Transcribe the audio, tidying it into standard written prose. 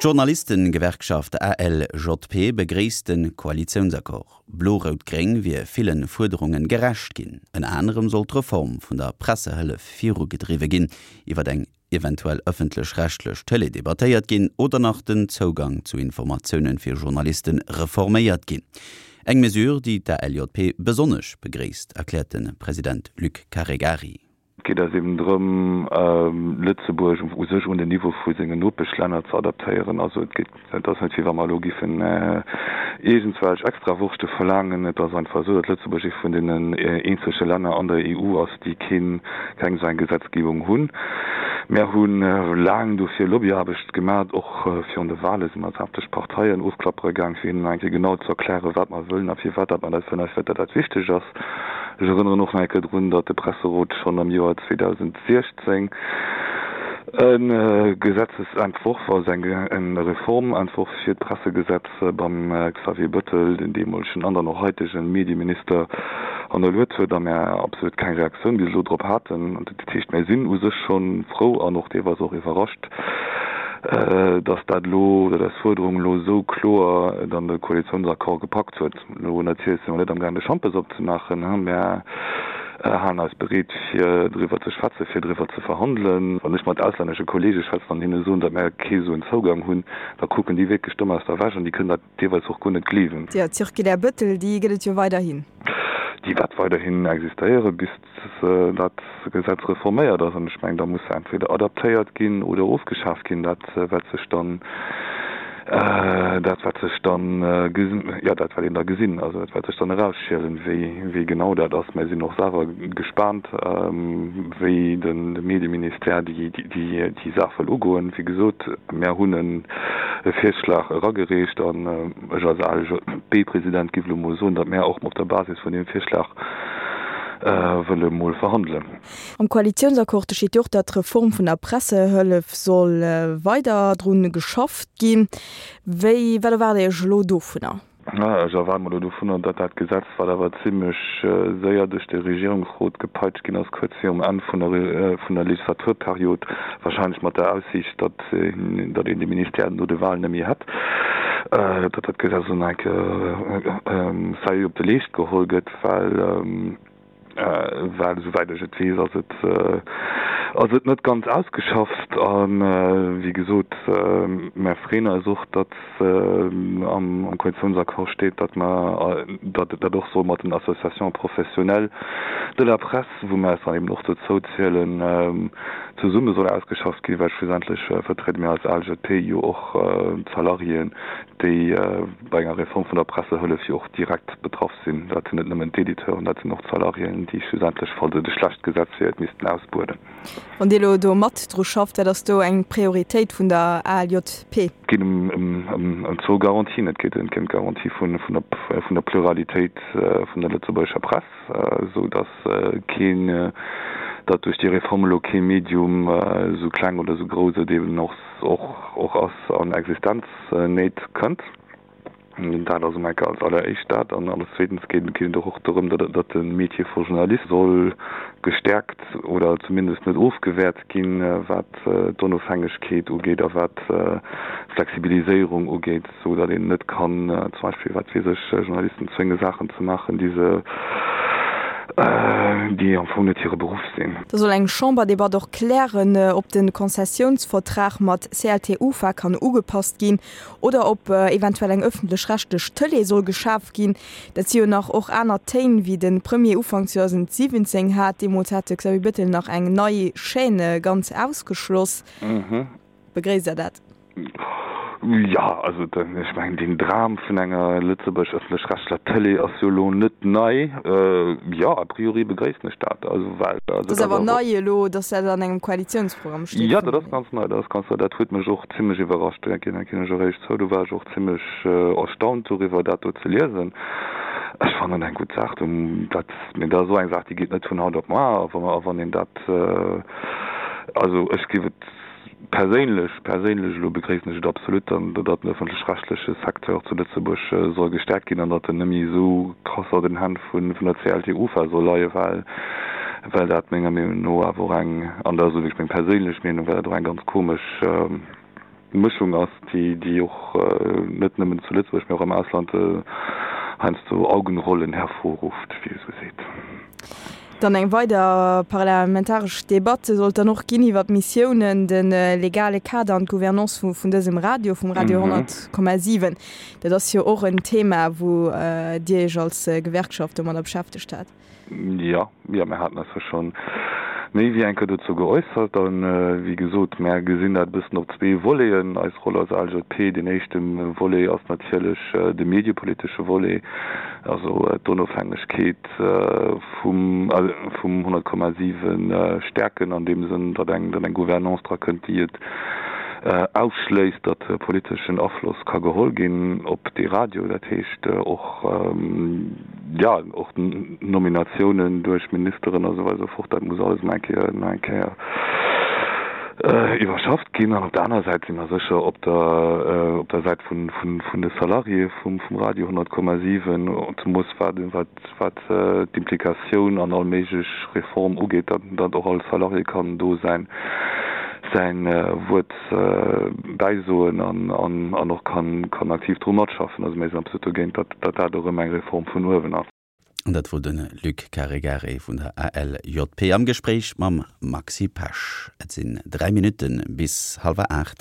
D'Journalistengewerkschaft ALJP begréisst de Koalitiounsaccord. Blo-Rout-Gréng wier ville Fuerderunge gerecht ginn. Ënner anerem soll d'Reform vun der Pressehëllef virugedriwwe ginn, iwwer eng eventuell ëffentlech-rechtlech Tëlee debattéiert ginn oder nach den Zougang zu Informatioune fir Journaliste reforméiert ginn. Eng Mesure, déi d'ALJP besonnesch begréisst, erkläert de President Luc Caregari. Et geet eis eben drëm, Lëtzebuerg u sech un den Niveau vu sengen Nopeschlänner ze adaptéieren. Also et geet, et ass net wéi wa mer elo giffen iergendswelch Extrawurschte verlaangen. Et ass einfach esou, datt Lëtzebuerg ee vun deenen eenzege Länner an der EU ass, déi keen, keng esou eng Gesetzgebung hunn. Mär hu laang dofir Lobbyaarbecht gemat, och virun de Wahle si mer sämtlech Parteien ofklappere gaang, fir hinnen nach eng Kéier genau ze erklären, wat mer wëllen a firwat dat mer dat wëllen a firwat dat dat wichteg ass. Ech erënneren och nach eng Kéier drun, datt de Presserot schonn am Joer 2016 e Gesetzesentworf, also eng Reformentworf fir d'Pressegesetz beim Xavier Bettel, den deemolegen an dann och haitege Medieminister, hannerluet huet a mär absolut keng Reaktioun bis elo drop haten. Dat heescht, mär sinn u sech scho frou an och deelweis och iwwerrascht, datt dat elo, datt eis Fuerderung elo esou kloer et an de Koalitiounsaccord gepackt huet. Elo natierlech si mer net amgaang de Schampes opzemaachen, mä halen eis bereet fir driwwer ze schwätzen, fir driwwer ze verhandelen. Wann ech mat auslännesche Kollege schwätzen an hinne soen, datt mär kee esou en Zougang hunn, da kucken déi wierklech domm aus der Wäsch an déi kënnen dat deelweis och guer net gleewen. Jo, d'Circulaire Bettel, déi gëtt et jo weiderhin. Déi wäert weiderhin existéiere bis dat Gesetz reforméiert ass. An ech mengen, da muss se entweder adaptéiert ginn oder ofgeschaaft ginn. Dat wäert sech dann, dat wäert sech dann, jo, dat wäert een da gesinn. Also dat wäert sech dann erausschielen, wéi, wéi genau dat ass. Mir sinn och selwer gespaant, wéi de Medieministère déi, déi, déi Saach wëll ugoen. Wéi gesot, mär hunn e Virschlag eragereecht an ech als ALJB-President giff elo mol soen, datt mär och op der Basis vun deem Virschlag wëlle mol verhandelen. Am Koalitiounsaccord steet jo och, datt d'Reform vun der Pressehëllef soll weider drun geschafft ginn. Wéi, wat erwaart Dir Iech elo dovunner? Ech erwaarde mer elo dovunner, datt dat Gesetz, wat awer zimlech séier duerch de Regierungsrot gepeitscht ginn ass, kuerz virum Enn vun der Legislaturperiod, wahrscheinlech mat der Aussiicht, datt datt een de Ministère no de Wahlen net méi hätt, datt dat Gesetz elo nach eng Kéier sérieux op de Leescht geholl gëtt, well, well esouwäit ech et weess, ass et, ass et net ganz ausgeschafft. A wéi gesot, mär freeën eis och, datt am Koalitionsaccord steet, datt mer, datt dat och soll mat den Associations professionnelles de la presse, wou mer eis dann eben och dozou zielen, zesumme soll ausgeschafft ginn, well schlussendlech vertriede mir als ALJP jo och d'Salariéen, déi bei enger Reform vun der Pressehëllef jo och direkt betraff sinn. Dat sinn net nëmmen d'Editeuren, dat sinn och d'Salariéen, déi schlussendlech, falls et e schlecht Gesetz wier, et missten ausbueden. Wann Dir elo do mat dru schafft, wat ass do eng Prioritéit vun der ALJP? Et geet ëm zwou Garantien. Et geet ëm d'Garantie vun der Pluralitéit vun der lëtzebuergescher Press, esou datt keen, datt duerch déi Reform elo kee Medium, esou kleng oder esou grouss et eben och ass, an Existenznéit kënnt. Dat ass emol als alleréischt dat. An als zweetens geet et och och dorëm, datt de Métier vu Journalist soll gestäerkt oder zumindest net ofgewäert ginn, wat d'Onofhängegkeet ugeet a wat d'Flexibiliséierung ugeet, esou datt een net kann zum Beispill, wat weess ech, Journalisten zwénge Saachen ze maachen, déi se, déi am Fong net hire Beruff sinn. Da soll eng Chamberdebatt och klären, ob de Konzessiounsvertrag mat CLT-UFA kann ugepasst ginn Oder ob eventuell eng ëffentlech-rechtlech Tëlee soll geschaf ginn. Dat si jo nach och aner Téin, wéi de Premier Ufank 2017 hat. Deemools hat de Xavier Bettel nach eng nei Chaîne ganz ausgeschloss. Begréisst Der dat? Jo, also ech mengen, deen Dram vun enger Lëtzebuerg ëffentlech-rechtler Tëlee ass jo elo net nei. Jo, a priori begréissen ech dat. Also well, also Dat ass awer nei elo, datt dat an engem Koalitiounsprogramm steet. Jo, dat ass ganz nei, dat ass ganz nei. Dat huet mech och zimlech iwwerrascht, dat ginn ech och éierlech zou. Do war ech och zimlech erstaunt doriwwer, dat do ze liesen. Ech fannen eng gutt Saach. Dat, mee dat ass och eng Saach, déi geet net vun haut op muar. A wann een dat, also ech géif et perséinlech, perséinlech elo begréissen ech et absolut, dann, datt den ëffentlech-rechtleche Secteur zu Lëtzebuerg soll gestäerkt ginn an datt en net méi esou krass an den Hänn vun der CLT-UFA soll leien, well, well dat menger Meenung no awer och eng, an dat ass elo wierklech meng perséinlech Meenung, well dat och eng ganz komesch. Mëschung ass, déi, déi och net nëmmen zu Lëtzebuerg, mee och am Ausland heiansdo Augenrollen hervorruft, wéi ee sou seet. Dann eng weider parlamentaresch Debatte sollt dann och ginn iwwer d'Missiounen, de legale Kader an d'Gouvernance vun dësem Radio, vum Radio 100,7. Dat ass jo och en Thema, wou Dir Iech als Gewerkschaft domadder beschäftegt hat. Jo, jo, mir haten eis jo scho méi wéi eng Kéier dozou geäussert. A wéi gesot, mär gesinn dat e bëssen op zwee Voleten, eis Roll als ALJP. Deen éischte Volet ass natierlech de mediepolitesche Volet, also d'Onofhängegkeet vum 100,7 stäerken an deem Sënn, datt eng Gouvernance dra kënnt, déi et ausschléisst, datt politeschen Afloss ka geholl ginn op dee Radio. Dat heescht och, jo, och Nominatiounen duerch Ministeren a sou weider esou fort, dat muss alles nach eng Kéier, nach eng Kéier iwwerschafft ginn. An op der anerer Säit si mer sécher op der, op der Säit vun, vun, vun de Salariéë vum, vum Radio 100,7, zemoos wat, wat, wat d'Implikatioun an all méiglech Reform ugeet, datt, datt och all Salarié kann do säin, säin Wuert bäisoen an, an, an och kann, kann aktiv dru matschaffen. Also mir sinn absolut dogéint, datt, datt dat och erëm eng Reform vun uewen ass. An dat wor de Luc Caregari vun der ALJP am Gespréich mam Maxi Pesch. Et sinn 3 Minutte bis hallwer 8.